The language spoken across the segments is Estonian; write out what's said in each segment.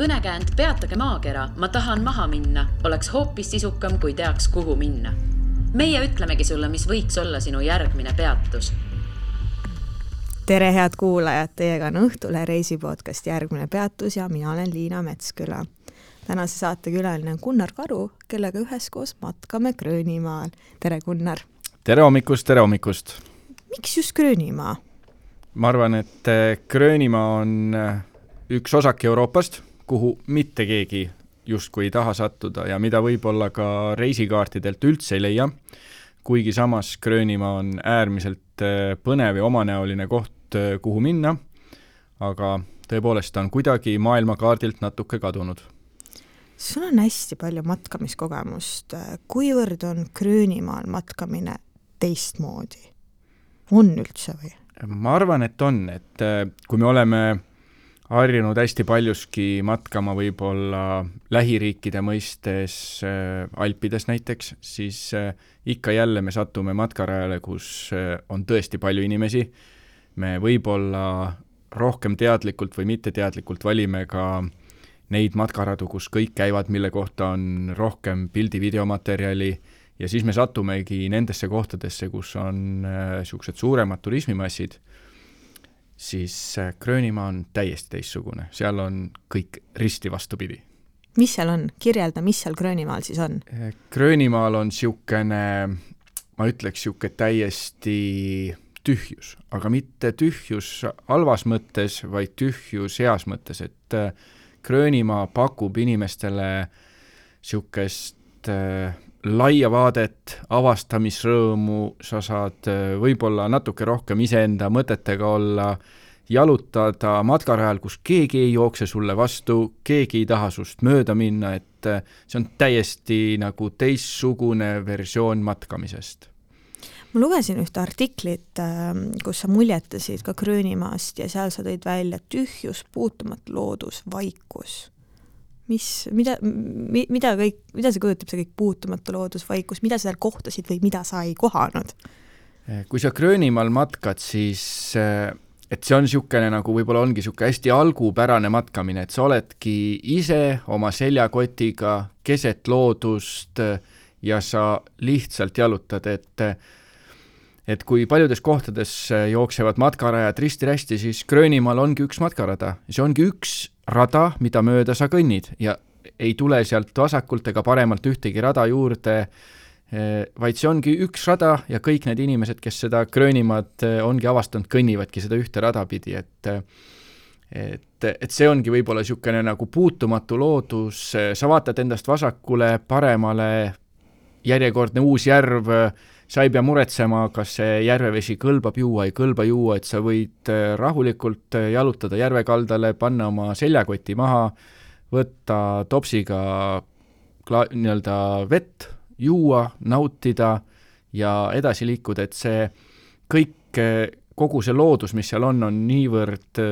Kõnekäänd peatage maakera, ma tahan maha minna, oleks hoopis sisukam, kui teaks, kuhu minna. Meie ütlemegi sulle, mis võiks olla sinu järgmine peatus. Tere head kuulajad, teiega on Õhtule reisipodcast Järgmine peatus ja mina olen Liina Metsküla. Tänase saate külaline on Gunnar Karu, kellega üheskoos matkame Gröönimaal. Tere Gunnar! Tere hommikust! Miks just Gröönimaa? Ma arvan, et Gröönimaa on üks osak Euroopast, kuhu mitte keegi justkui ei taha sattuda ja mida võib-olla ka reisikaartidelt üldse ei leia, kuigi samas Gröönimaa on äärmiselt põnev ja omanäoline koht, kuhu minna, aga tõepoolest on kuidagi maailmakaardilt natuke kadunud. Sul on hästi palju matkamiskogemust. Kuivõrd on Gröönimaal matkamine teistmoodi? On üldse või? Ma arvan, et on, et kui me oleme harjunud hästi paljuski matkama võib-olla lähiriikide mõistes Alpides näiteks, siis ikka jälle me satume matkarajale, kus on tõesti palju inimesi. Me võib-olla rohkem teadlikult või mitteteadlikult valime ka neid matkaradu, kus kõik käivad, mille kohta on rohkem pildi-videomaterjali ja siis me satumegi nendesse kohtadesse, kus on siuksed suuremad turismimassid, siis Gröönimaa on täiesti teistsugune. Seal on kõik risti vastupidi. Mis seal on? Kirjelda, mis seal Gröönimaal siis on? Gröönimaal on siukene, ma ütleks siuke täiesti tühjus, aga mitte tühjus halvas mõttes, vaid tühjus heas mõttes, et Gröönimaa pakub inimestele siukest laia vaadet, avastamisrõõmu, sa saad võib-olla natuke rohkem iseenda mõtetega olla, jalutada matkarajal, kus keegi ei jookse sulle vastu, keegi ei taha sust mööda minna, et see on täiesti nagu teistsugune versioon matkamisest. Ma lugesin ühte artiklit, kus sa muljetasid ka Gröönimaast ja seal sa tõid välja tühjus, puutumatu loodus, vaikus. Mida see kujutab, see kõik puutumatu loodus, vaikus, mida sa seal kohtasid või mida sa ei kohanud? Kui sa Gröönimaal matkad, siis et see on siukene nagu võib-olla ongi siuke hästi algupärane matkamine, et sa oledki ise oma seljakotiga keset loodust ja sa lihtsalt jalutad, et kui paljudes kohtades jooksevad matkarajad risti-rästi, siis Gröönimaal ongi üks matkarada. See ongi üks rada, mida mööda sa kõnnid ja ei tule sealt vasakult ega paremalt ühtegi rada juurde, vaid see ongi üks rada ja kõik need inimesed, kes seda Gröönimaad ongi avastanud, kõnnivadki seda ühte rada pidi, et see ongi võib-olla siukene nagu puutumatu loodus, sa vaatad endast vasakule, paremale, järjekordne uus järv, sa ei pea muretsema, kas see järvevesi kõlbab juua, ei kõlba juua, et sa võid rahulikult jalutada järvekaldale, panna oma seljakoti maha, võtta topsiga nii-öelda vett, juua, nautida ja edasi liikuda, et see kõik, kogu see loodus, mis seal on niivõrd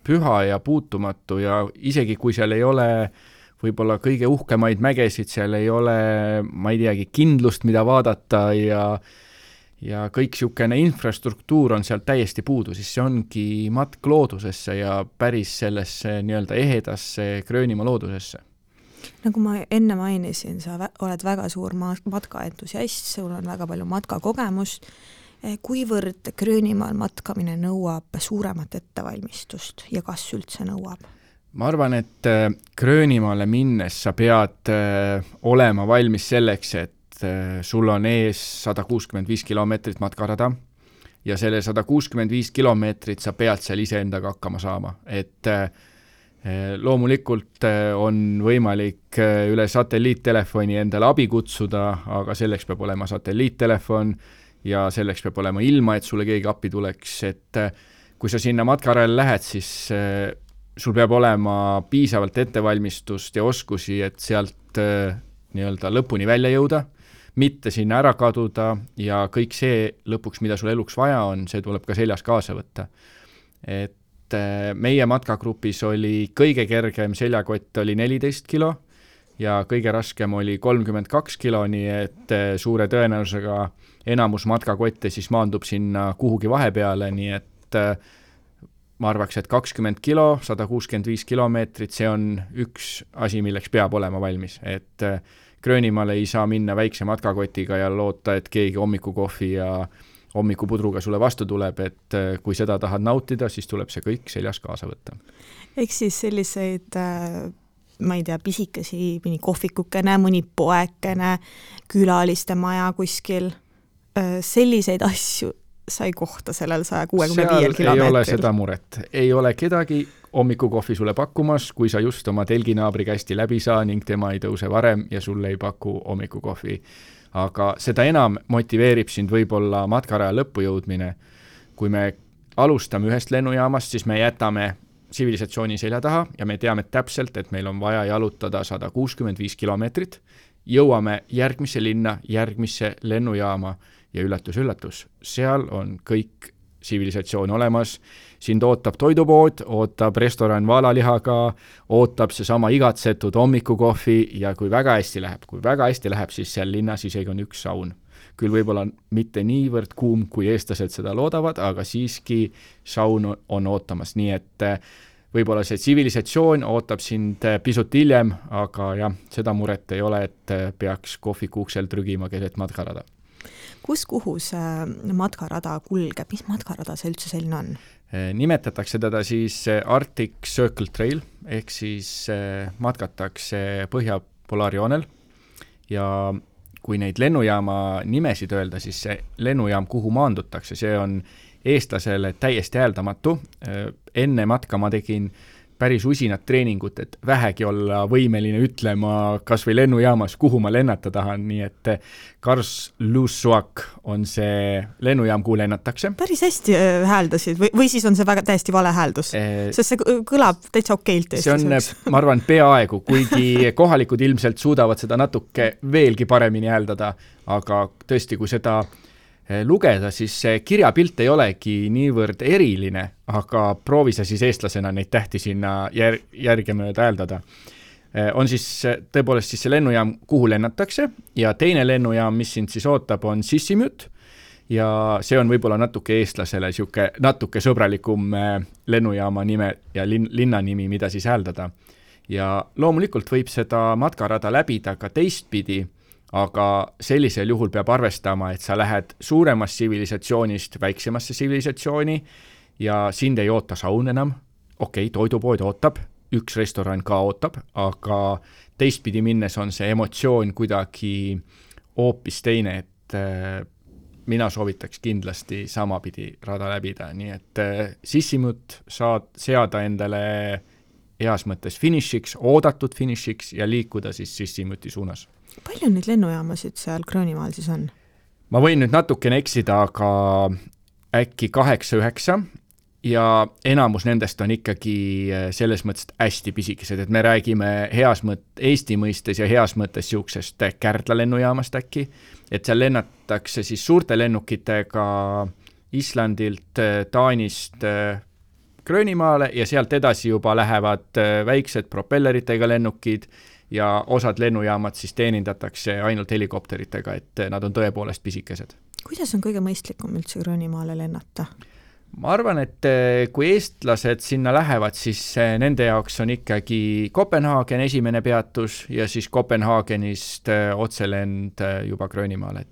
püha ja puutumatu ja isegi kui seal ei ole võib-olla kõige uhkemaid mägesid, seal ei ole, ma ei teagi, kindlust, mida vaadata ja kõik siukene infrastruktuur on seal täiesti puudu, siis see ongi matk loodusesse ja päris sellesse nii-öelda ehedasse Gröönimaa loodusesse. Nagu ma enne mainisin, sa oled väga suur matkaentusiast, sul on väga palju matkakogemust. Kuivõrd Gröönimaal matkamine nõuab suuremat ettevalmistust ja kas üldse nõuab? Ma arvan, et Gröönimaale minnes sa pead olema valmis selleks, et sul on ees 165 kilomeetrit matkarada ja selle 165 kilomeetrit sa pead seal iseendaga hakkama saama. Et loomulikult on võimalik üle satelliittelefoni endale abi kutsuda, aga selleks peab olema satelliittelefon ja selleks peab olema ilma, et sulle keegi appi tuleks. Et kui sa sinna matkarajale lähed, siis sul peab olema piisavalt ettevalmistust ja oskusi, et sealt nii-öelda lõpuni välja jõuda, mitte sinna ära kaduda ja kõik see lõpuks, mida sul eluks vaja on, see tuleb ka seljas kaasa võtta. Et meie matkagrupis oli kõige kergem seljakott oli 14 kilo ja kõige raskem oli 32 kilo, nii et suure tõenäosusega enamus matkakotte siis maandub sinna kuhugi vahepeale, nii et ma arvaks, et 20 kilo, 165 kilomeetrit, see on üks asi, milleks peab olema valmis, et Gröönimaale ei saa minna väikse matkakotiga ja loota, et keegi hommikukohvi ja hommikupudruga sulle vastu tuleb, et kui seda tahad nautida, siis tuleb see kõik seljas kaasa võtta. Eks siis selliseid, ma ei tea, pisikesi, mõni kohvikukene, mõni poekene, külaliste maja kuskil, selliseid asju sai kohta sellel 165 kilomeetril. Seal ei ole seda muret. Ei ole kedagi hommikukohvi sulle pakkumas, kui sa just oma telginaabri kästi läbi saa ning tema ei tõuse varem ja sulle ei paku hommikukohvi. Aga seda enam motiveerib sind võib-olla matkaraja lõppu jõudmine. Kui me alustame ühest lennujaamast, siis me jätame tsivilisatsiooni selja taha ja me teame täpselt, et meil on vaja jalutada 165 kilomeetrit. Jõuame järgmisse linna, järgmisse lennujaama ja üllatus, seal on kõik tsivilisatsioon olemas. Sind ootab toidupood, ootab restoran vaalalihaga, ootab seesama igatsetud hommikukohvi ja kui väga hästi läheb, siis seal linnas isegi on üks saun. Küll võib-olla mitte niivõrd kuum, kui eestlased seda loodavad, aga siiski saun on ootamas. Nii et võib-olla see tsivilisatsioon ootab sind pisut hiljem, aga jah, seda muret ei ole, et peaks kohvikuuksel trügima keset matkarada. Kuhu see matkarada kulgeb? Mis matkarada see üldse selline on? Nimetatakse teda siis Arctic Circle Trail, ehk siis matkatakse Põhja-Polaarjoonel ja kui neid lennujaama nimesid öelda, siis see lennujaam, kuhu maandutakse, see on eestlasele täiesti hääldamatu. Enne matka ma tegin päris usinat treeningut, et vähegi olla võimeline ütlema kas või lennujaamas, kuhu ma lennata tahan, nii et Karlsruhe on see lennujaam, kuhu lennatakse. Päris hästi hääldasid või siis on see väga täiesti vale hääldus, sest see kõlab täitsa okeilt. See on, ma arvan, peaaegu, kuigi kohalikud ilmselt suudavad seda natuke veelgi paremini hääldada, aga tõesti, kui seda lugeda, siis see kirjapilt ei olegi niivõrd eriline, aga proovi sa siis eestlasena neid tähti sinna järgemööda hääldada. On siis tõepoolest siis see lennujaam, kuhu lennatakse ja teine lennujaam, mis sind siis ootab, on Sissimut ja see on võib-olla natuke eestlasele natuke sõbralikum lennujaama nime ja linna nimi, mida siis hääldada. Ja loomulikult võib seda matkarada läbida ka teistpidi, aga sellisel juhul peab arvestama, et sa lähed suuremast tsivilisatsioonist väiksemasse tsivilisatsiooni ja sind ei oota saun enam. Okei, toidupood ootab, üks restoran ka ootab, aga teistpidi minnes on see emotsioon kuidagi hoopis teine, et mina soovitaks kindlasti samapidi rada läbida, nii et Sissimut saad seada endale heas mõttes finišiks, oodatud finišiks ja liikuda siis Sissimuti suunas. Palju neid lennujaamasid seal Gröönimaal siis on? Ma võin nüüd natukene eksida, aga äkki 8-9 ja enamus nendest on ikkagi selles mõttes hästi pisikesed, et me räägime Eesti mõistes ja heas mõttes siuksest Kärdla lennujaamast äkki, et seal lennatakse siis suurte lennukitega Islandilt, Taanist Gröönimaale ja sealt edasi juba lähevad väiksed propelleritega lennukid ja osad lennujaamad siis teenindatakse ainult helikopteritega, et nad on tõepoolest pisikesed. Kuidas on kõige mõistlikum üldse Gröönimaale lennata? Ma arvan, et kui eestlased sinna lähevad, siis nende jaoks on ikkagi Kopenhaagen esimene peatus ja siis Kopenhaagenist otselend juba Gröönimaale,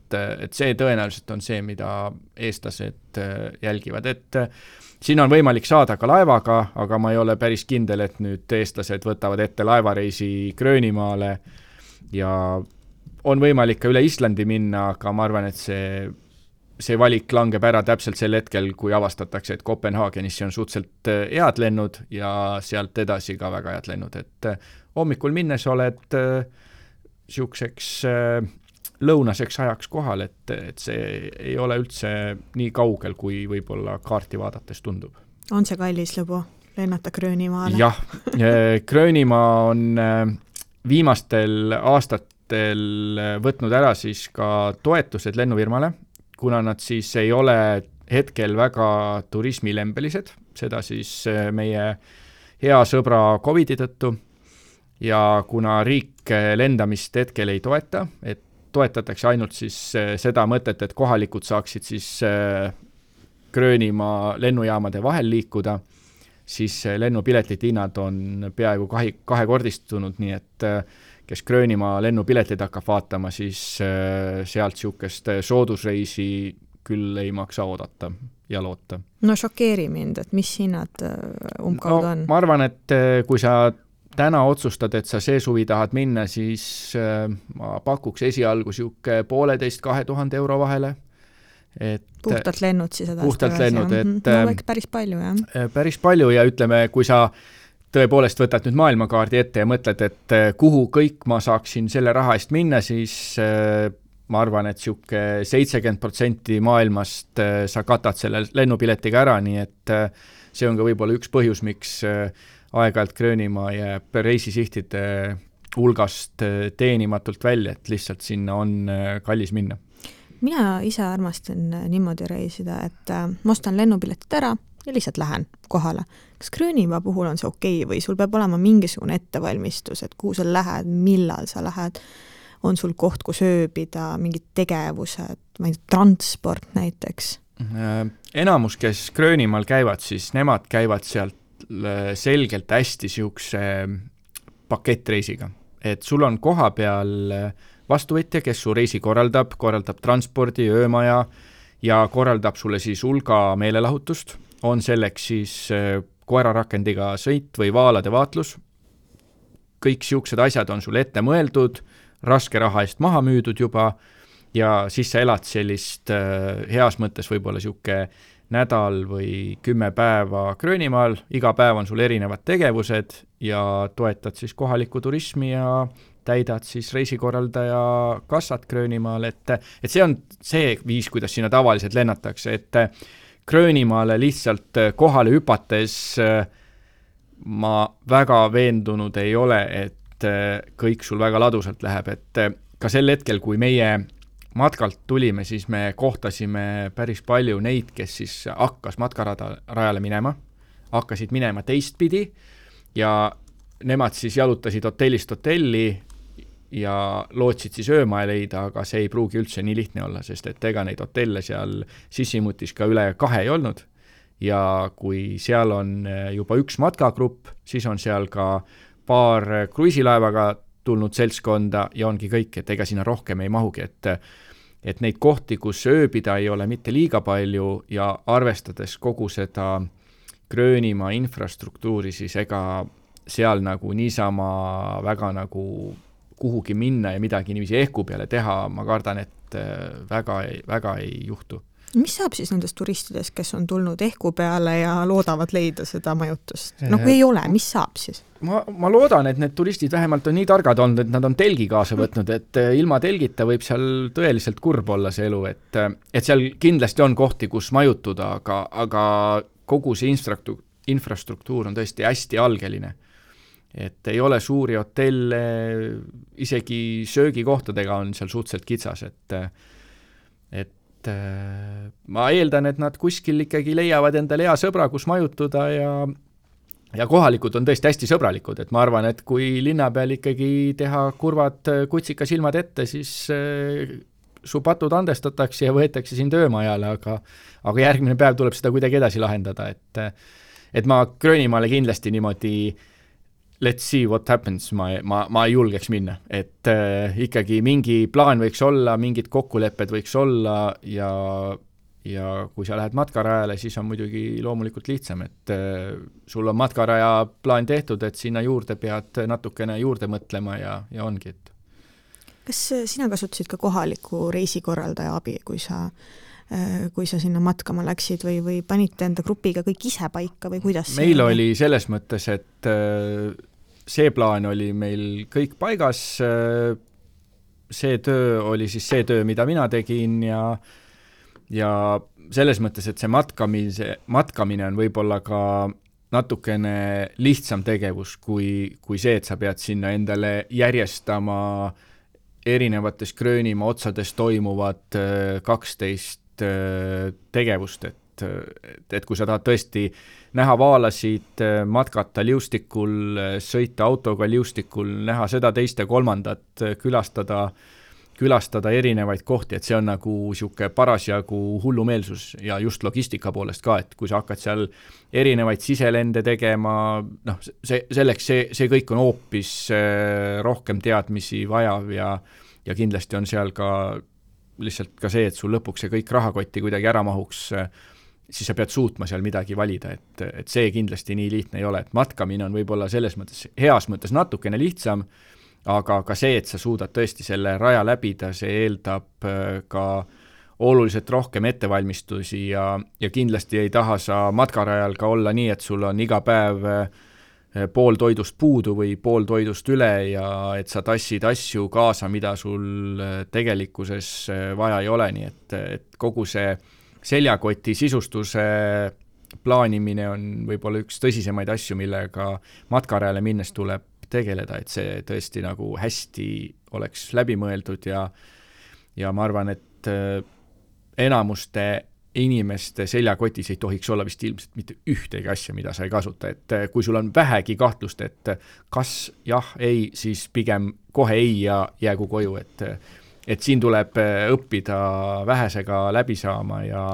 et see tõenäoliselt on see, mida eestlased jälgivad, et siin on võimalik saada ka laevaga, aga ma ei ole päris kindel, et nüüd eestlased võtavad ette laevareisi Gröönimaale ja on võimalik ka üle Islandi minna, aga ma arvan, et see valik langeb ära täpselt sel hetkel, kui avastatakse, et Kopenhaagenisse on suhteliselt head lennud ja sealt edasi ka väga head lennud, et hommikul minnes oled siukseks lõunaseks ajaks kohal, et see ei ole üldse nii kaugel, kui võib-olla kaarti vaadates tundub. On see kallis lõbu lennata Gröönimaale? Jah, Gröönimaa on viimastel aastatel võtnud ära siis ka toetused lennufirmale, kuna nad siis ei ole hetkel väga turismilembelised, seda siis meie hea sõbra COVID-i tõttu ja kuna riik lendamist hetkel ei toeta, et toetatakse ainult siis seda mõtet, et kohalikud saaksid siis Gröönimaa lennujaamade vahel liikuda, siis lennupiletite hinnad on peaaegu kahekordistunud, nii et kes Gröönimaa lennupiletid hakkab vaatama, siis sealt niisugust soodusreisi küll ei maksa oodata ja loota. No šokeeri mind, et mis hinnad umbkaudu on? Ma arvan, et kui sa täna otsustad, et sa see suvi tahad minna, siis ma pakuks esialgu niisugune 1,5–2,000 euro vahele. Puhtalt lennud siis edasi. Puhtalt lennud, et no, päris palju, jah. Päris palju ja ütleme, kui sa tõepoolest võtad nüüd maailmakaardi ette ja mõtled, et kuhu kõik ma saaksin selle raha eest minna, siis ma arvan, et niisugune 70% maailmast sa katad selle lennupiletiga ära, nii et see on ka võib-olla üks põhjus, miks aeg-ajalt Gröönimaa jääb reisisihtide hulgast teenimatult välja, et lihtsalt sinna on kallis minna. Mina ise armastan niimoodi reisida, et ma ostan lennupiletid ära ja lihtsalt lähen kohale. Kas Gröönimaa puhul on see okei või sul peab olema mingisugune ettevalmistus, et kuhu sa lähed, millal sa lähed, on sul koht, kus ööbida, mingid tegevused, ma ei tea, transport näiteks? Enamus, kes Gröönimaal käivad, siis nemad käivad sealt selgelt hästi niisuguse pakettreisiga. Et sul on koha peal vastuvõtja, kes su reisi korraldab transpordi, öömaja ja korraldab sulle siis hulga meelelahutust. On selleks siis koerarakendiga sõit või vaalade vaatlus. Kõik niisugused asjad on sul ette mõeldud, raske raha eest maha müüdud juba ja siis sa elad sellist heas mõttes võib-olla niisugune nädal või 10 päeva Gröönimaal, iga päev on sul erinevad tegevused ja toetad siis kohalikku turismi ja täidad siis reisikorraldaja kassat Gröönimaal, et see on see viis, kuidas sinna tavaliselt lennatakse, et Gröönimaale lihtsalt kohale hüpates ma väga veendunud ei ole, et kõik sul väga ladusalt läheb, et ka sel hetkel, kui meie matkalt tulime, siis me kohtasime päris palju neid, kes siis hakkas matkarajale minema, hakkasid minema teistpidi ja nemad siis jalutasid hotellist hotelli ja lootsid siis öömaja leida, aga see ei pruugi üldse nii lihtne olla, sest et ega neid hotelle seal sissimutis ka üle 2 ei olnud ja kui seal on juba üks matkagrupp, siis on seal ka paar kruiisilaevaga tulnud seltskonda ja ongi kõik, et ega sinna rohkem ei mahugi, et neid kohti, kus ööbida ei ole mitte liiga palju ja arvestades kogu seda Gröönimaa infrastruktuuri, siis ega seal nagu niisama väga nagu kuhugi minna ja midagi niiviisi ehku peale teha, ma kardan, et väga ei juhtu. Mis saab siis nendest turistidest, kes on tulnud ehku peale ja loodavad leida seda majutust? No kui ei ole, mis saab siis? Ma loodan, et need turistid vähemalt on nii targad olnud, et nad on telgi kaasa võtnud, et ilma telgita võib seal tõeliselt kurb olla see elu, et seal kindlasti on kohti, kus majutuda, aga kogu see infrastruktuur on tõesti hästi algeline. Et ei ole suuri hotelle, isegi söögikohtadega on seal suhteliselt kitsas, et ma eeldan, et nad kuskil ikkagi leiavad endale hea sõbra, kus majutuda ja kohalikud on tõesti hästi sõbralikud, et ma arvan, et kui linna peal ikkagi teha kurvad kutsika silmad ette, siis su patud andestatakse ja võetakse sind öömajale, aga järgmine päev tuleb seda kuidagi edasi lahendada, et ma Gröönimaale kindlasti niimoodi let's see what happens, ma ei julgeks minna, et ikkagi mingi plaan võiks olla, mingid kokkulepped võiks olla ja kui sa lähed matkarajale, siis on muidugi loomulikult lihtsam, et sul on matkaraja plaan tehtud, et sinna juurde pead natukene juurde mõtlema ja ongi, et. Kas sina kasutasid ka kohaliku reisikorraldaja abi, kui sa sinna matkama läksid või panite enda grupiga kõik ise paika või kuidas? Meil oli selles mõttes, et see plaan oli meil kõik paigas, see töö oli siis see töö, mida mina tegin ja selles mõttes, et see matkamine on võib-olla ka natukene lihtsam tegevus kui see, et sa pead sinna endale järjestama erinevates Gröönimaa otsades toimuvad 12 tegevust, et kui sa tahad tõesti näha vaalasid, matkata liustikul, sõita autoga liustikul, näha seda teist ja kolmandat, külastada külastada erinevaid kohti, et see on nagu sihuke parasjagu hullumeelsus ja just logistika poolest ka, et kui sa hakkad seal erinevaid siselende tegema, noh, see kõik on hoopis rohkem teadmisi vajav ja kindlasti on seal ka lihtsalt ka see, et sul lõpuks see kõik rahakotti kuidagi ära mahuks, siis sa pead suutma seal midagi valida, et see kindlasti nii lihtne ei ole, et matkamine on võib-olla selles mõttes, heas mõttes natukene lihtsam, aga ka see, et sa suudad tõesti selle raja läbida, see eeldab ka oluliselt rohkem ettevalmistusi ja kindlasti ei taha sa matkarajal ka olla nii, et sul on iga päev pool toidust puudu või pool toidust üle ja et sa tassid asju kaasa, mida sul tegelikkuses vaja ei ole, nii et kogu see seljakoti sisustuse plaanimine on võib-olla üks tõsisemaid asju, millega matkarajale minnes tuleb tegeleda, et see tõesti nagu hästi oleks läbi mõeldud ja ma arvan, et enamuste inimeste seljakotis ei tohiks olla vist ilmselt mitte ühtegi asja, mida sa ei kasuta, et kui sul on vähegi kahtlust, et kas jah, ei, siis pigem kohe ei ja jäägu koju, et siin tuleb õppida vähesega läbi saama ja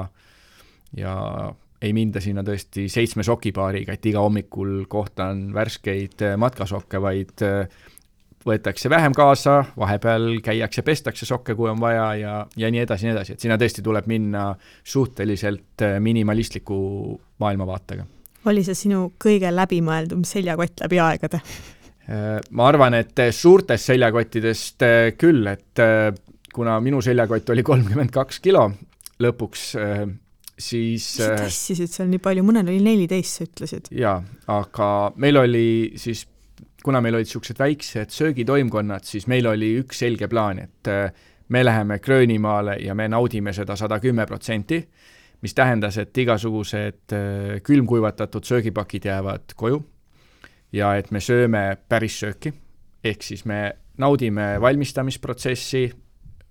ei minda sinna tõesti 7 sokipaariga, et iga hommikul kohtan värskeid matkasokke, vaid võetakse vähem kaasa, vahepeal käiakse, pestakse sokke, kui on vaja ja nii edasi, et sinna tõesti tuleb minna suhteliselt minimalistliku maailmavaatega. Oli see sinu kõige läbimõeldum seljakott läbi aegade? Ma arvan, et suurtest seljakottidest küll, et kuna minu seljakott oli 32 kilo lõpuks, siis sa tassisid seal nii palju, mõnel oli 14, sa ütlesid. Jaa, aga meil oli siis, kuna meil olid sellised väiksed söögitoimkonnad, siis meil oli üks selge plaan, et me läheme Gröönimaale ja me naudime seda 110%, mis tähendas, et igasugused külmkuivatatud söögipakid jäävad koju ja et me sööme päris sööki, ehk siis me naudime valmistamisprotsessi,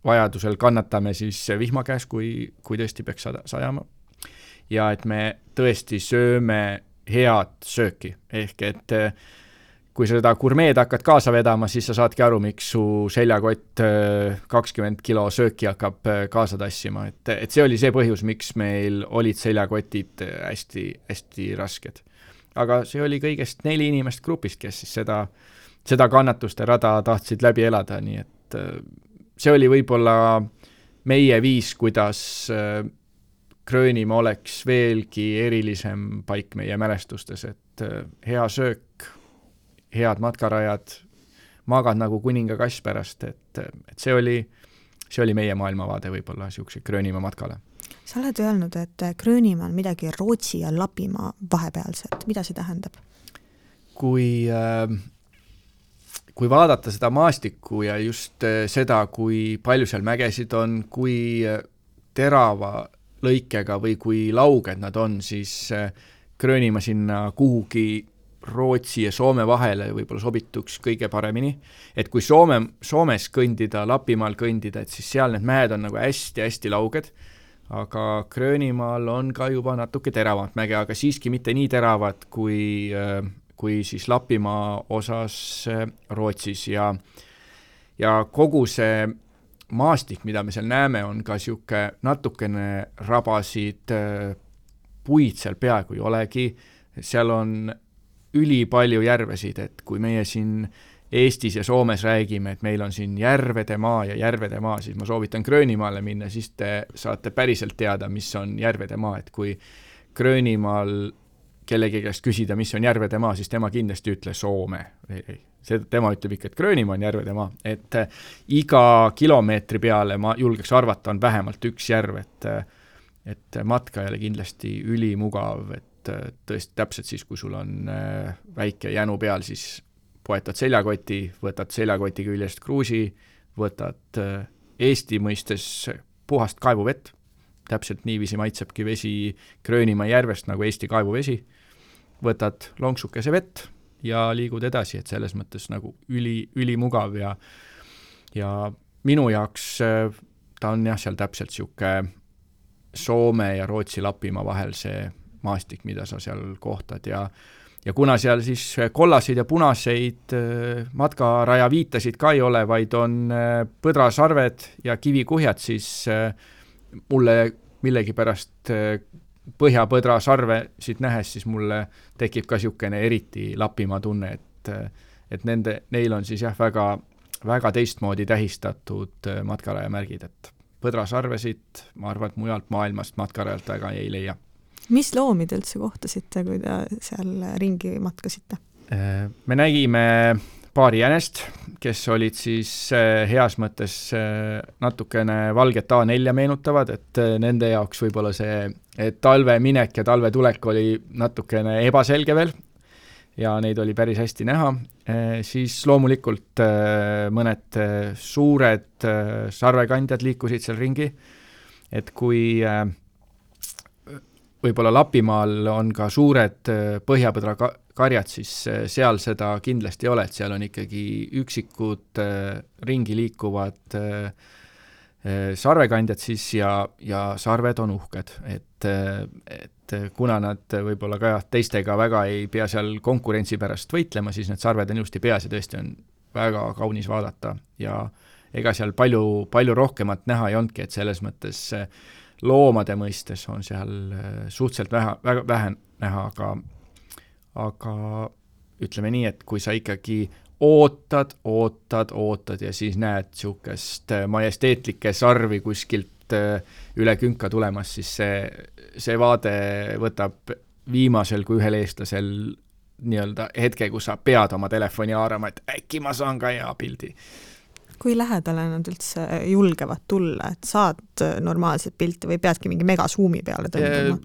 vajadusel kannatame siis vihma käes, kui tõesti peaks sajama. Ja et me tõesti sööme head sööki, ehk et kui sa seda gurmeed hakkad kaasa vedama, siis sa saadki aru, miks su seljakott 20 kilo sööki hakkab kaasa tassima, et see oli see põhjus, miks meil olid seljakotid hästi, hästi rasked. Aga see oli kõigest 4 inimest grupist, kes siis seda kannatuste rada tahtsid läbi elada, nii et see oli võib-olla meie viis, kuidas Gröönimaa oleks veelgi erilisem paik meie mälestustes, et hea söök, head matkarajad, magad nagu kuninga kass pärast, et see oli meie maailmavaade võib-olla siukse Gröönimaa matkale. Sa oled öelnud, et Gröönimaa on midagi Rootsi ja Lapimaa vahepealset. Mida see tähendab? Kui vaadata seda maastikku ja just seda, kui palju seal mägesid on, kui terava lõikega või kui lauged nad on, siis Gröönimaa sinna kuhugi Rootsi ja Soome vahele võib-olla sobituks kõige paremini. Et kui Soomes kõndida, Lapimaal kõndida, et siis seal need mäed on nagu hästi-hästi lauged, aga Gröönimaal on ka juba natuke teravamat mäge, aga siiski mitte nii teravad kui siis Lapimaa osas Rootsis ja kogu see maastik, mida me seal näeme, on ka siuke natukene rabasid, puid seal peaaegu ei olegi, seal on ülipalju järvesid, et kui meie siin Eestis ja Soomes räägime, et meil on siin järvede maa, siis ma soovitan Gröönimaale minna, siis te saate päriselt teada, mis on järvede maa, et kui Gröönimaal kellegi käest küsida, mis on järvede maa, siis tema kindlasti ütle Soome. Tema ütleb ikka, et Gröönimaa on järvede maa, et iga kilomeetri peale ma julgeks arvata, on vähemalt üks järv, et matkajale kindlasti ülimugav, et tõesti täpselt siis, kui sul on väike jänu peal, siis poetad seljakoti, võtad seljakoti küljest kruusi, võtad Eesti mõistes puhast kaevuvett, täpselt niiviisi maitsebki vesi Gröönimaa järvest nagu Eesti kaevuvesi, võtad lonksukese vett ja liigud edasi, et selles mõttes nagu ülimugav ja minu jaoks ta on jah, seal täpselt siuke Soome ja Rootsi Lapimaa vahel see maastik, mida sa seal kohtad ja ja kuna seal siis kollaseid ja punaseid matkaraja viitasid ka ei ole, vaid on põdrasarved ja kivikuhjad, siis mulle millegipärast põhjapõdrasarve siit nähes, siis mulle tekib ka niisugune eriti Lapimaa tunne, et neil on siis jah, väga, väga teistmoodi tähistatud matkaraja märgid, et põdrasarvesid, ma arvan, et mujalt maailmast matkarajalt väga ei leia. Mis loomi te üldse kohtasite, kui te seal ringi matkasite? Me nägime paari jänest, kes olid siis heas mõttes natukene valget A4 meenutavad, et nende jaoks võib-olla see talve minek ja talve tulek oli natukene ebaselge veel ja neid oli päris hästi näha. Siis loomulikult mõned suured sarvekandjad liikusid seal ringi, et kui võib-olla Lapimaal on ka suured põhjapõdra karjad, siis seal seda kindlasti ei ole, et seal on ikkagi üksikud ringi liikuvad sarvekandjad siis ja sarved on uhked, et kuna nad võib-olla ka teistega väga ei pea seal konkurentsi pärast võitlema, siis need sarved on ilusti peas ja tõesti on väga kaunis vaadata ja ega seal palju rohkemat näha ei olnudki, et selles mõttes loomade mõistes on seal suhteliselt väga vähe näha, aga ütleme nii, et kui sa ikkagi ootad ja siis näed niisugust majesteetlikke sarvi kuskilt üle künka tulemas, siis see vaade võtab viimasel kui ühel eestlasel nii-öelda hetke, kus sa pead oma telefoni haarama, et äkki ma saan ka hea pildi. Kui lähedale nad üldse julgevad tulla, et saad normaalset pilti või peadki mingi megasuumi peale tõmbama?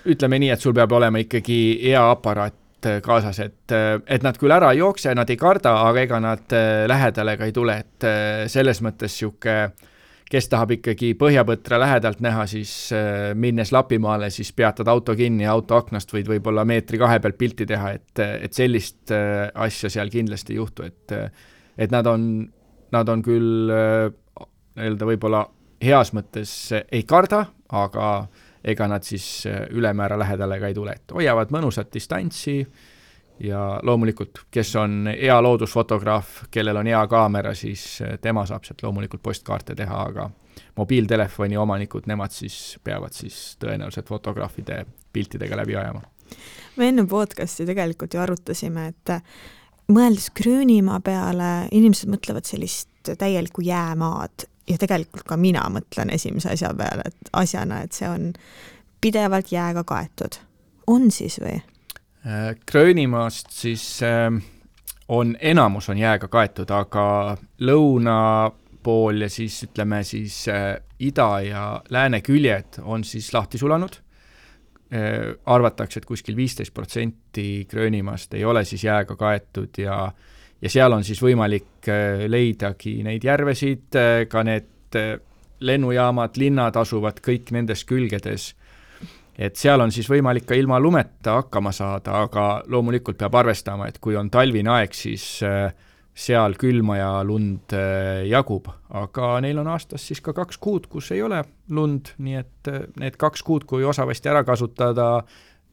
Ütleme nii, et sul peab olema ikkagi hea aparaat kaasas, et nad küll ära ei jookse, nad ei karda, aga ega nad lähedale ka ei tule, et selles mõttes siuke, kes tahab ikkagi põhjapõtra lähedalt näha, siis minnes Lapimaale, siis peatad auto kinni ja auto aknast võid võib-olla 1-2 meetri pealt pilti teha, et sellist asja seal kindlasti ei juhtu, et nad on küll öelda võib-olla heas mõttes ei karda, aga ega nad siis ülemäära lähedale ka ei tule, et hoiavad mõnusat distantsi ja loomulikult, kes on hea loodusfotograaf, kellel on hea kaamera, siis tema saab sealt loomulikult postkaarte teha, aga mobiiltelefoni omanikud, nemad siis peavad siis tõenäoliselt fotograafide piltidega läbi ajama. Me enne podcasti tegelikult ju arutasime, et mõeldes Gröönimaa peale, inimesed mõtlevad sellist täielikku jäämaad ja tegelikult ka mina mõtlen esimese asjana, et see on pidevalt jääga kaetud. On siis või? Gröönimaast siis enamus on jääga kaetud, aga lõuna pool ja siis ütleme siis ida ja lääne küljed on siis lahti sulanud. Arvatakse, et kuskil 15% Gröönimaast ei ole siis jääga kaetud ja seal on siis võimalik leidagi neid järvesid, ka need lennujaamad, linnad asuvad kõik nendes külgedes, et seal on siis võimalik ka ilma lumeta hakkama saada, aga loomulikult peab arvestama, et kui on talvine aeg, siis seal külma ja lund jagub, aga neil on aastas siis ka 2 kuud, kus ei ole lund, nii et need 2 kuud, kui osavasti ära kasutada,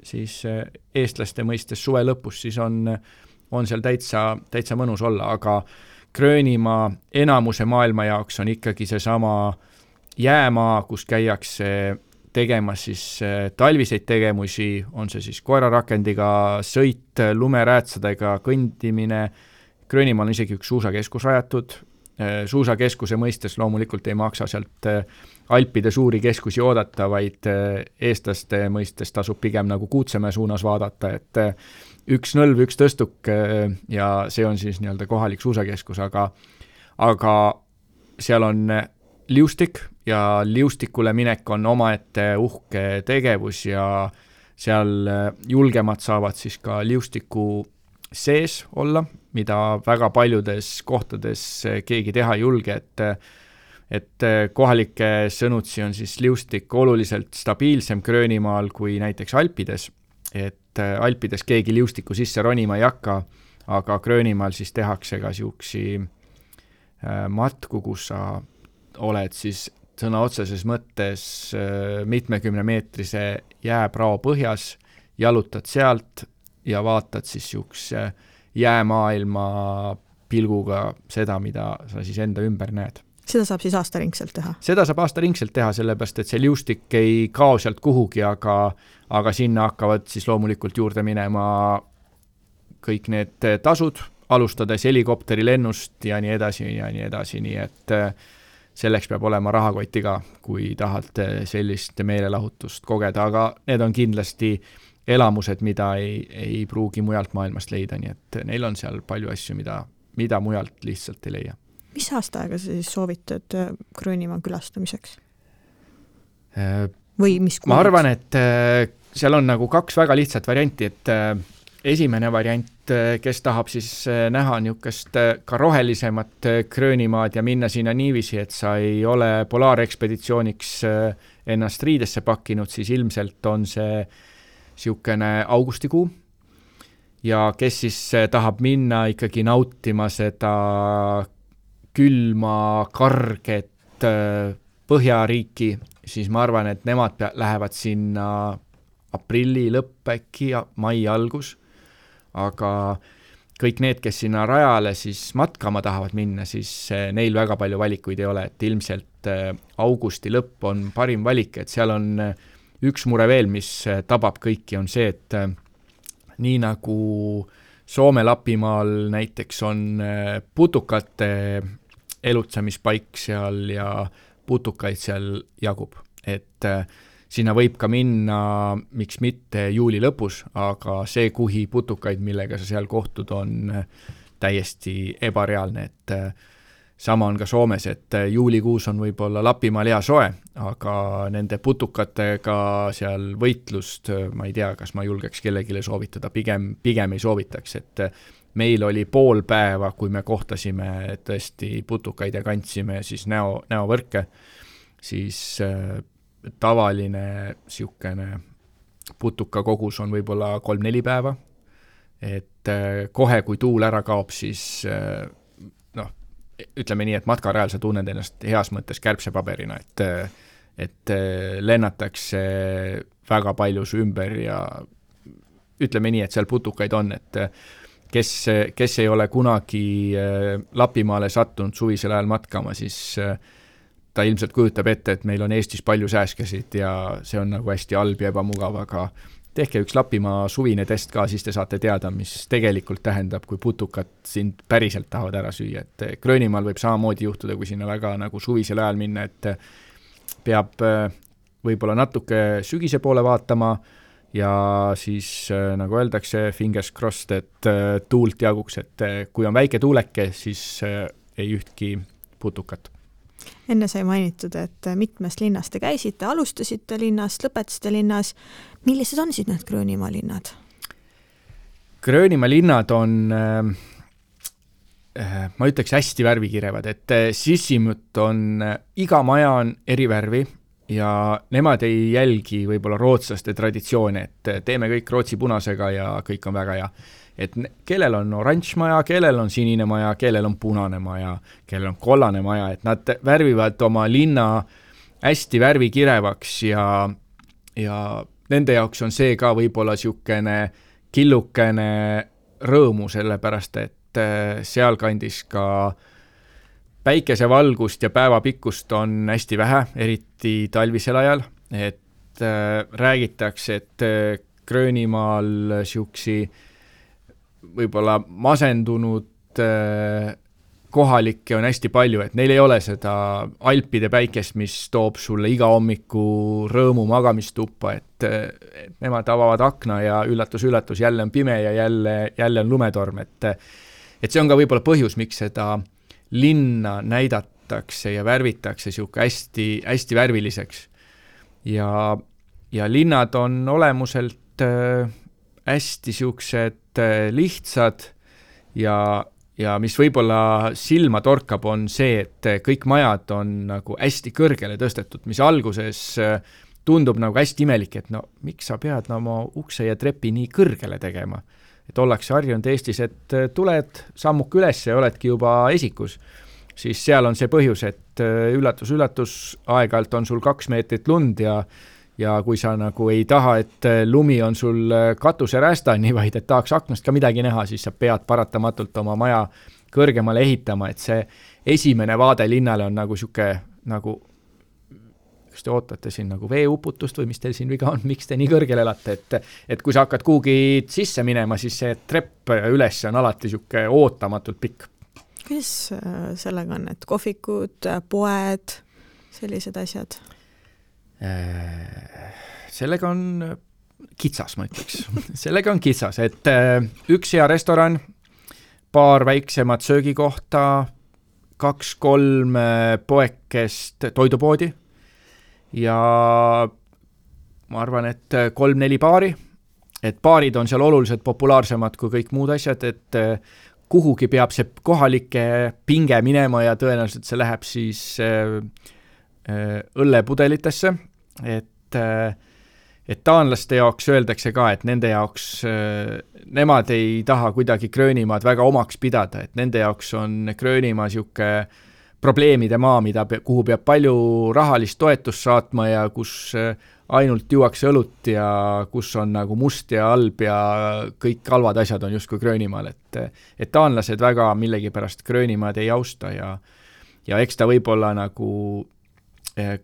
siis eestlaste mõistes suve lõpus, siis on seal täitsa mõnus olla, aga Gröönimaa enamuse maailma jaoks on ikkagi seesama jäämaa, kus käiakse tegemas siis talviseid tegemusi, on see siis koerarakendiga sõit, lumeräätsadega kõndimine. Gröönimaal on isegi üks suusakeskus rajatud. Suusakeskuse mõistes loomulikult ei maksa sealt Alpide suuri keskusi oodata, vaid eestlaste mõistes tasub pigem nagu Kuutsemäe suunas vaadata, et üks nõlv, üks tõstuk ja see on siis nii-öelda kohalik suusakeskus, aga seal on liustik ja liustikule minek on omaette uhke tegevus ja seal julgemad saavad siis ka liustiku sees olla, mida väga paljudes kohtades keegi teha ei julge, et kohalike sõnutsi on siis liustik oluliselt stabiilsem Gröönimaal kui näiteks Alpides, et Alpides keegi liustiku sisse ronima ei hakka, aga Gröönimaal siis tehakse ka siuksi matku, kus sa oled siis sõna otseses mõttes mitmekümne meetrise jääprao põhjas, jalutad sealt ja vaatad siis niisuguse jäämaailma pilguga seda, mida sa siis enda ümber näed. Seda saab siis aastaringselt teha? Seda saab aastaringselt teha, sellepärast, et see liustik ei kao sealt kuhugi, aga sinna hakkavad siis loomulikult juurde minema kõik need tasud, alustades helikopteri lennust ja nii edasi, nii et selleks peab olema rahakotti ka, kui tahad sellist meelelahutust kogeda, aga need on kindlasti elamused, mida ei pruugi mujalt maailmast leida, nii et neil on seal palju asju, mida mujalt lihtsalt ei leia. Mis aastaaega sa siis soovitad Gröönimaa külastamiseks? Või mis kuulid? Ma arvan, et seal on nagu 2 väga lihtsat varianti, et esimene variant, kes tahab siis näha niisugust ka rohelisemat Gröönimaad ja minna sinna niiviisi, et sa ei ole polaarekspeditsiooniks ennast riidesse pakkinud, siis ilmselt on see niisugune augustikuu. Ja kes siis tahab minna ikkagi nautima seda külma, karget Põhjariiki, siis ma arvan, et nemad lähevad sinna aprilli lõpp äkki ja mai algus, aga kõik need, kes sinna rajale siis matkama tahavad minna, siis neil väga palju valikuid ei ole, et ilmselt augusti lõpp on parim valik, et seal on üks mure veel, mis tabab kõiki, on see, et nii nagu Soome-Lapimaal näiteks on putukate elutsamispaik seal ja putukaid seal jagub, et sinna võib ka minna, miks mitte juuli lõpus, aga see kuhi putukaid, millega sa seal kohtud, on täiesti ebareaalne, et sama on ka Soomes, et juulikuus on võib-olla Lapimaal hea soe, aga nende putukatega seal võitlust, ma ei tea, kas ma julgeks kellegile soovitada, pigem ei soovitaks, et meil oli pool päeva, kui me kohtasime tõesti putukaid ja kandsime siis näovõrke, siis tavaline siukene putuka kogus on võib-olla 3-4 päeva, et kohe, kui tuul ära kaob, siis ütleme nii, et matkarajal sa tunned ennast heas mõttes kärbsepaberina, et lennatakse väga palju su ümber ja ütleme nii, et seal putukaid on, et kes ei ole kunagi Lapimaale sattunud suvisel ajal matkama, siis ta ilmselt kujutab ette, et meil on Eestis palju sääskesid ja see on nagu hästi halb ja ebamugav, aga tehke üks Lapimaa suvine test ka, siis te saate teada, mis tegelikult tähendab, kui putukad sind päriselt tahavad ära süüa, et Gröönimaal võib samamoodi juhtuda, kui sinna väga nagu suvisel ajal minna, et peab võib-olla natuke sügise poole vaatama ja siis nagu öeldakse, fingers crossed, et tuult jaguks, et kui on väike tuuleke, siis ei ühtki putukat. Enne sai mainitud, et mitmest linnast te käisite, alustasite linnast, lõpetasite linnas. Millised on siis need Gröönimaa linnad? Gröönimaa linnad on, ma ütleks, hästi värvikirevad, et Sissimut on, iga maja on eri värvi ja nemad ei jälgi võib-olla rootslaste traditsioone, et teeme kõik rootsi punasega ja kõik on väga hea. Et kellel on oranž maja, kellel on sinine maja, kellel on punane maja, kellel on kollane maja, et nad värvivad oma linna hästi värvikirevaks ja nende jaoks on see ka võib-olla siukene killukene rõõmu, sellepärast et sealkandis ka päikesevalgust ja päevapikkust on hästi vähe, eriti talvisel ajal, et räägitakse, et Gröönimaal siuksi võib-olla masendunud kohalikke on hästi palju, et neil ei ole seda Alpide päikest, mis toob sulle iga hommiku rõõmu magamistuppa, et nemad avavad akna ja üllatus, jälle on pime ja jälle on lumetorm, et see on ka võib-olla põhjus, miks seda linna näidatakse ja värvitakse siuke hästi, hästi värviliseks. Ja linnad on olemuselt hästi siuksed lihtsad ja mis võib-olla silma torkab, on see, et kõik majad on nagu hästi kõrgele tõstetud, mis alguses tundub nagu hästi imelik, et no miks sa pead oma ukse ja trepi nii kõrgele tegema? Et ollakse harjunud Eestis, et tuled sammuk üles ja oledki juba esikus. Siis seal on see põhjus, et üllatus, aeg-ajalt on sul 2 meetrit lund ja kui sa nagu ei taha, et lumi on sul katuserästani, vaid et tahaks aknast ka midagi näha, siis sa pead paratamatult oma maja kõrgemale ehitama, et see esimene vaade linnale on nagu siuke, nagu kas te ootate siin nagu veeuputust või mis teil siin viga on, miks te nii kõrgel elate, et kui sa hakkad kuhugi sisse minema, siis see trepp üles on alati siuke ootamatult pikk. Kuidas sellega on, et kohvikud, poed, sellised asjad? Sellega on kitsas, ma ütleks. Sellega on kitsas, et üks hea restoran, paar väiksemat söögikohta, 2-3 poekest toidupoodi ja ma arvan, et 3-4 baari. Et baarid on seal oluliselt populaarsemad kui kõik muud asjad, et kuhugi peab see kohalike pinge minema ja tõenäoliselt see läheb siis õllepudelitesse, et taanlaste jaoks öeldakse ka, et nende jaoks nemad ei taha kuidagi Gröönimaad väga omaks pidada, et nende jaoks on Gröönimaa siuke probleemide maa, kuhu peab palju rahalist toetust saatma ja kus ainult juuakse õlut ja kus on nagu must ja halb ja kõik halvad asjad on justkui Gröönimaal, et taanlased väga millegipärast Gröönimaad ei austa ja eks ta võib-olla nagu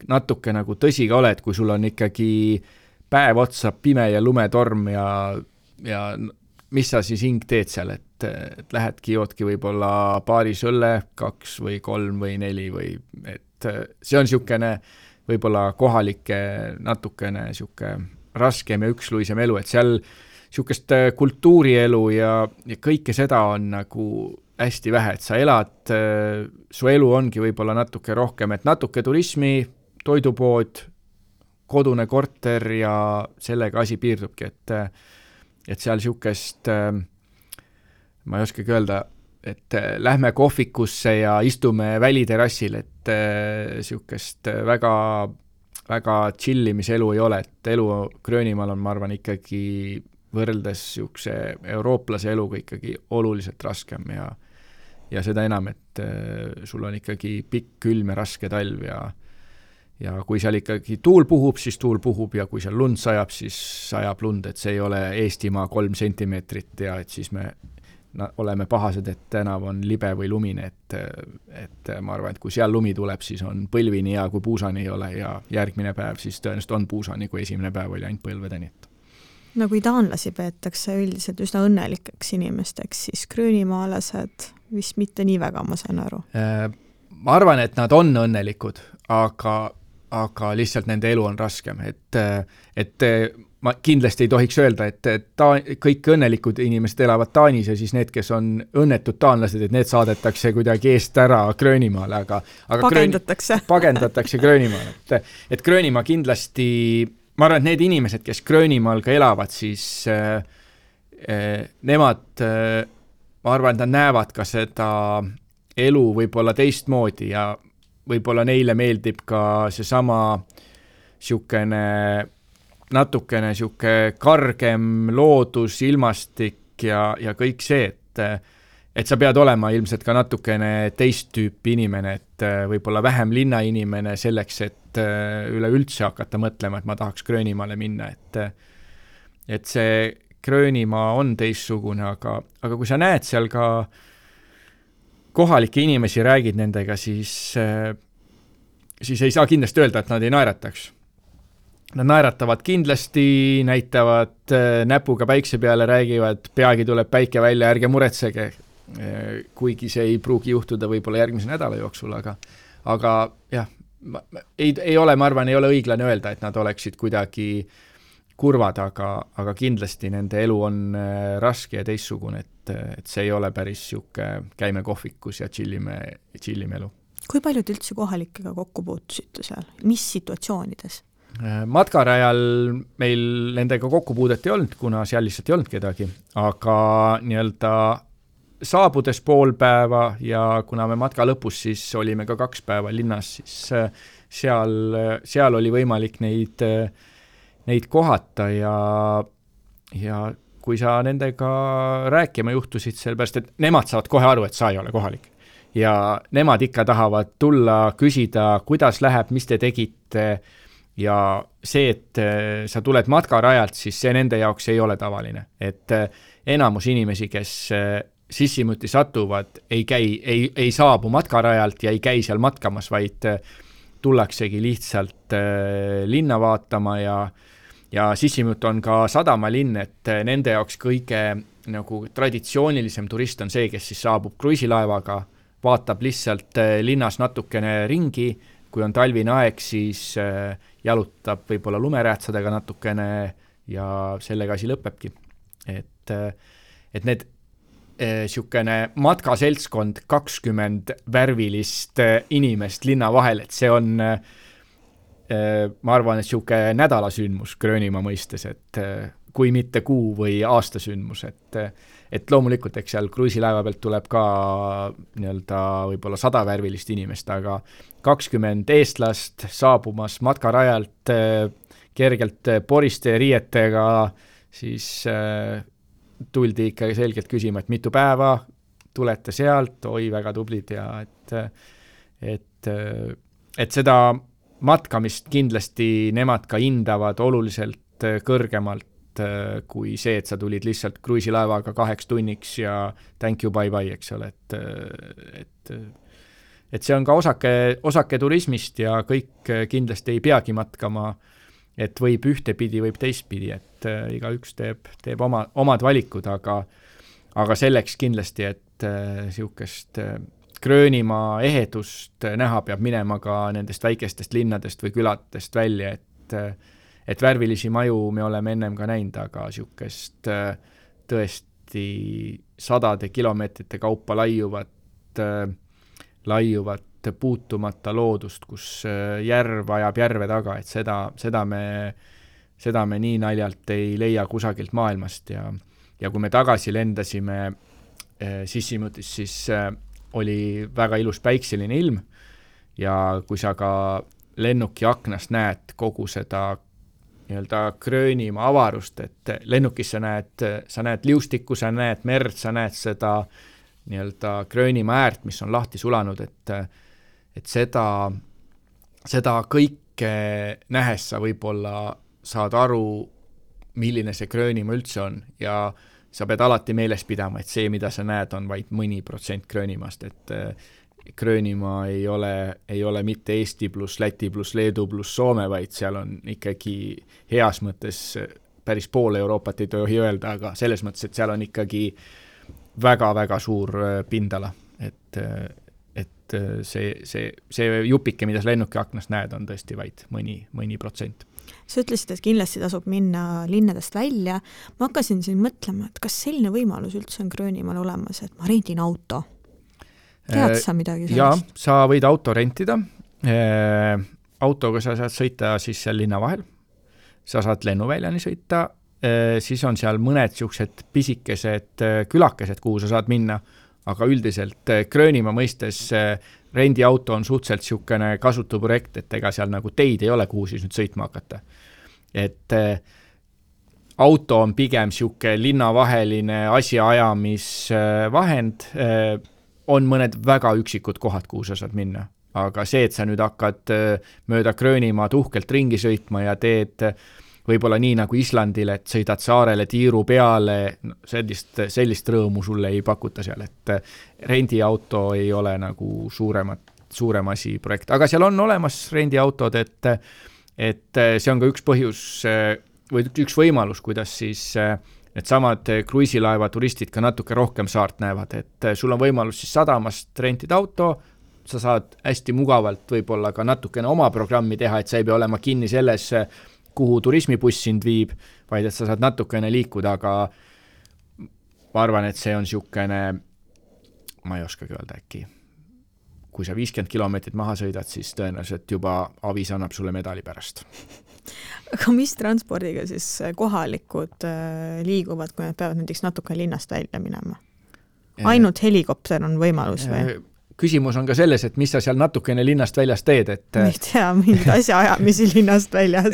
natuke nagu tõsi ka ole, et kui sul on ikkagi päev otsa pime ja lumetorm ja mis sa siis hing teed seal, et lähedki joodki võib-olla paaris õlle 2 või 3 või 4 või et see on siukene võib-olla kohalike natukene siuke raskem ja üksluisem elu, et seal siukest kultuurielu ja kõike seda on nagu hästi vähe, et sa elad, su elu ongi võib-olla natuke rohkem, et natuke turismi, toidupood, kodune korter ja sellega asi piirdubki, et seal siukest, ma ei oskagi öelda, et lähme kohvikusse ja istume väliterassil, et siukest väga, väga chillimiselu ei ole, et elu Gröönimaal on, ma arvan, ikkagi võrreldes siukse eurooplase eluga ikkagi oluliselt raskem ja seda enam, et sul on ikkagi pikk, külm ja raske talv ja kui seal ikkagi tuul puhub, siis tuul puhub ja kui seal lund sajab, siis sajab lund, et see ei ole Eestimaa 3 sentimeetrit ja et siis me oleme pahased, et tänav on libe või lumine, et ma arvan, et kui seal lumi tuleb, siis on põlvini ja kui puusani ei ole ja järgmine päev siis tõenäoliselt on puusani, kui esimene päev oli ainult põlvedeni. No kui taanlasi peetakse üldiselt üsna õnnelikeks inimesteks, siis gröönimaalased vist mitte nii väga, ma saan aru. Ma arvan, et nad on õnnelikud, aga lihtsalt nende elu on raskem, et ma kindlasti ei tohiks öelda, et kõik õnnelikud inimesed elavad Taanis ja siis need, kes on õnnetud taanlased, et need saadetakse kuidagi eest ära Gröönimaale, aga pagendatakse Gröönimaale, et Gröönimaa kindlasti, ma arvan, et need inimesed, kes Gröönimaal ka elavad, siis nemad, ma arvan, et nad näevad ka seda elu võib-olla teistmoodi ja võib-olla neile meeldib ka seesama siukene natukene siuke kargem loodus, ilmastik ja kõik see, et sa pead olema ilmselt ka natukene teist tüüpi inimene, et võib-olla vähem linnainimene selleks, et üleüldse hakata mõtlema, et ma tahaks Gröönimaale minna, et see Gröönimaa on teistsugune, aga kui sa näed seal ka kohalikke inimesi, räägid nendega, siis ei saa kindlasti öelda, et nad ei naerataks. Nad naeratavad kindlasti, näitavad näpuga päikse peale, räägivad, peagi tuleb päike välja, ärge muretsege, kuigi see ei pruugi juhtuda võib-olla järgmise nädala jooksul, aga jah, ei ole, ma arvan, ei ole õiglane öelda, et nad oleksid kuidagi kurvad, aga kindlasti nende elu on raske ja teistsugune, et see ei ole päris siuke käime kohvikus ja chillime elu. Kui paljud üldse kohalikega kokku puutusite seal? Mis situatsioonides? Matkarajal meil nendega kokkupuudet ei olnud, kuna seal lihtsalt ei olnud kedagi, aga nii-öelda saabudes pool päeva ja kuna me matka lõpus siis olime ka 2 päeva linnas, siis seal oli võimalik neid kohata ja kui sa nendega rääkima juhtusid, sellepärast, et nemad saavad kohe aru, et sa ei ole kohalik. Ja nemad ikka tahavad tulla, küsida, kuidas läheb, mis te tegite, ja see, et sa tuled matkarajalt, siis see nende jaoks ei ole tavaline. Et enamus inimesi, kes Sissymuti satuvad, ei saabu matkarajalt ja ei käi seal matkamas, vaid tullaksegi lihtsalt linna vaatama ja Sissymut on ka sadamalinn, et nende jaoks kõige nagu traditsioonilisem turist on see, kes siis saabub kruiisilaevaga, vaatab lihtsalt linnas natukene ringi, kui on talvine aeg, siis jalutab võib-olla lumeräätsadega natukene ja sellega asi lõpebki. Et need siukene matkaseltskond 20 värvilist inimest linna vahel, et see on, ma arvan, et siuke nädalasündmus Gröönimaa mõistes, et kui mitte kuu või aastasündmus, et loomulikult, eks seal kruiisilaeva pealt tuleb ka nii-öelda võib-olla 100 värvilist inimest, aga 20 eestlast saabumas matkarajalt kergelt poriste riietega, siis tuldi ikka selgelt küsima, et mitu päeva tulete sealt, oi väga tublid ja et seda matkamist kindlasti nemad ka hindavad oluliselt kõrgemalt kui see, et sa tulid lihtsalt kruiisilaevaga 2 tunniks ja thank you, bye bye, eks ole, et see on ka osake turismist ja kõik kindlasti ei peagi matkama, et võib ühtepidi, võib teistpidi, et igaüks teeb omad valikud, aga selleks kindlasti, et siukest Gröönimaa ehedust näha peab minema ka nendest väikestest linnadest või küladest välja, et värvilisi maju me oleme ennem ka näinud, aga siukest tõesti 100 kilomeetrite kaupa laiuvat puutumata loodust, kus järv ajab järve taga, et seda me nii naljalt ei leia kusagilt maailmast ja kui me tagasi lendasime Sissymutis, siis oli väga ilus päikseline ilm ja kui sa ka lennuki aknast näed kogu seda nii-öelda Gröönimaa avarust, et lennukis sa näed liustikku, sa näed merd, sa näed seda nii-öelda Gröönimaa äärt, mis on lahti sulanud, et seda kõike nähes sa võib-olla saad aru, milline see Gröönimaa üldse on ja sa pead alati meeles pidama, et see, mida sa näed, on vaid mõni protsent Gröönimaast, et Gröönimaa ei ole mitte Eesti pluss Läti pluss Leedu pluss Soome, vaid seal on ikkagi heas mõttes päris pool Euroopat ei tohi öelda, aga selles mõttes, et seal on ikkagi väga-väga suur pindala, et see jupike, mida sa lennuki aknast näed, on tõesti vaid mõni protsent. Sa ütlesid, et kindlasti tasub minna linnadest välja. Ma hakkasin siin mõtlema, et kas selline võimalus üldse on Gröönimaal olemas, et ma rendin auto. Tead sa midagi sellest? Jaa, sa võid auto rentida. Autoga sa saad sõita siis seal linna vahel. Sa saad lennuväljani sõita. Siis on seal mõned siuksed pisikesed külakesed, kuhu sa saad minna, aga üldiselt Gröönimaa mõistes rendiauto on suhteliselt siukene kasutu projekt, et ega seal nagu teid ei ole, kuhu siis nüüd sõitma hakata. Et auto on pigem siuke linnavaheline asjaajamisvahend, on mõned väga üksikud kohad, kuhu sa saad minna. Aga see, et sa nüüd hakkad mööda Gröönimaad uhkelt ringi sõitma ja teed võib-olla nii nagu Islandil, et sõidad saarele tiiru peale, sellist rõõmu sulle ei pakuta seal, et rendiauto ei ole nagu suurem asi projekt. Aga seal on olemas rendiautod, et see on ka üks põhjus või üks võimalus, kuidas siis need samad kruiisilaeva turistid ka natuke rohkem saart näevad, et sul on võimalus siis sadamast rentida auto, sa saad hästi mugavalt võib-olla ka natukene oma programmi teha, et sa ei pea olema kinni selles, kuhu turismibuss sind viib, vaid et sa saad natukene liikuda, aga ma arvan, et see on siukene, ma ei oskagi öelda äkki, kui sa 50 kilomeetrit maha sõidad, siis tõenäoliselt juba avis annab sulle medali pärast. Aga mis transpordiga siis kohalikud liiguvad, kui nad peavad näiteks natuke linnast välja minema? Ainult helikopter on võimalus või? Küsimus on ka selles, et mis sa seal natukene linnast väljast teed, et ei tea, mingid asja ajamisi linnast väljas.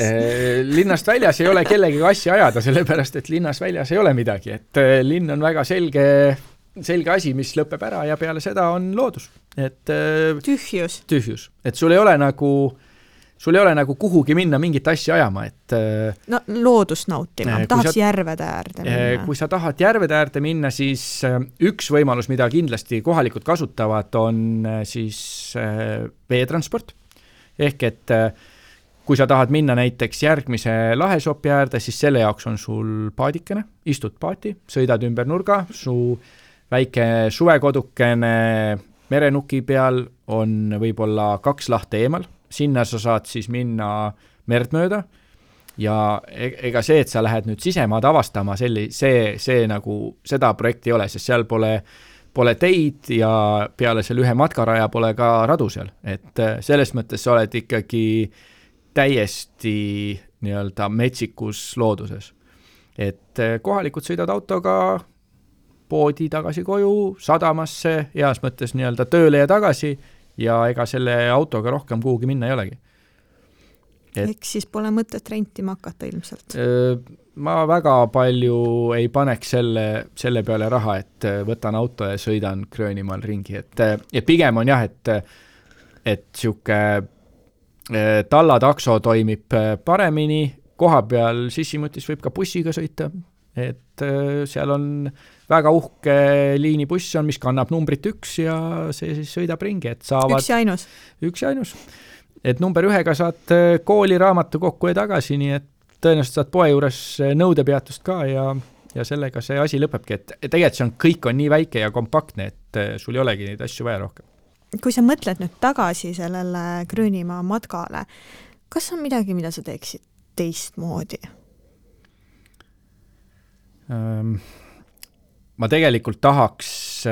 Linnast väljas ei ole kellegi asja ajada, sellepärast, et linnas väljas ei ole midagi, et linn on väga selge asi, mis lõpeb ära ja peale seda on loodus. Et tühjus. Et sul ei ole sul ei ole nagu kuhugi minna mingit asja ajama, et no loodust nautima, tahaks järvede äärde minna. Kui sa tahad järvede äärde minna, siis üks võimalus, mida kindlasti kohalikud kasutavad, on siis veetransport. Ehk et kui sa tahad minna näiteks järgmise lahesopi äärde, siis selle jaoks on sul paadikene, istud paati, sõidad ümber nurga, su väike suvekodukene merenuki peal on võib-olla 2 lahte eemal, sinna sa saad siis minna merd mööda ja ega see, et sa lähed nüüd sisemaad avastama, see nagu seda projekti ei ole, sest seal pole teid ja peale selle ühe matkaraja pole ka radu seal, et selles mõttes sa oled ikkagi täiesti nii-öelda metsikus looduses. Et kohalikud sõidad autoga poodi tagasi koju, sadamasse, heas mõttes nii-öelda tööle ja tagasi ja ega selle autoga rohkem kuhugi minna ei olegi. Ehk siis pole mõtet rentima hakata ilmselt? Ma väga palju ei paneks selle peale raha, et võtan auto ja sõidan Gröönimaal ringi. Et pigem on jah, et siuke tallatakso toimib paremini, koha peal Sissimutis võib ka bussiga sõita, et seal on väga uhke liinibuss on, mis kannab numbrit 1 ja see siis sõidab ringi, et saavad... Üks ja ainus. Et number 1-ga saad kooli raamatu kokku ja tagasi, nii et tõenäoliselt saad poe juures nõudepeatust ka ja sellega see asi lõpebki, et tegelikult kõik on nii väike ja kompaktne, et sul ei olegi neid asju vaja rohkem. Kui sa mõtled nüüd tagasi sellele Gröönimaa matkale, kas on midagi, mida sa teeksid teistmoodi? Ma tegelikult tahaks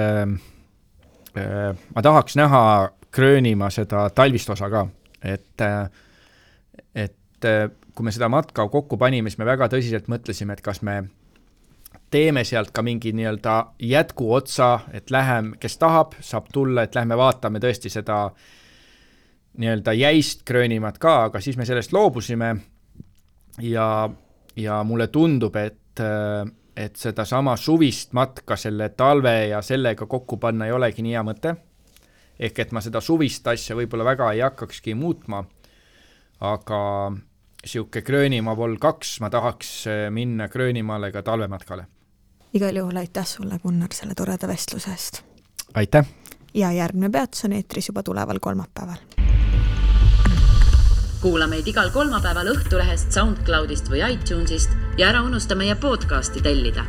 näha Gröönimaa seda talvist osa ka, et kui me seda matka kokku panime, siis me väga tõsiselt mõtlesime, et kas me teeme sealt ka mingi nii-öelda jätku otsa, et kes tahab, saab tulla, et lähme vaatame tõesti seda nii-öelda jäist Gröönimaad ka, aga siis me sellest loobusime ja mulle tundub, et seda sama suvist matka selle talve ja sellega kokku panna ei olegi nii hea mõte. Ehk et ma seda suvist asja võib-olla väga ei hakkakski muutma, aga siuke Gröönimaa vol 2 ma tahaks minna Gröönimaale ka talvematkale. Igal juhul aitäh sulle, Gunnar, selle toreda vestluse eest. Aitäh! Ja järgmine peatus on eetris juba tuleval kolmapäeval. Kuula meid igal kolmapäeval Õhtulehest, SoundCloudist või iTunesist ja ära unusta meie podcasti tellida.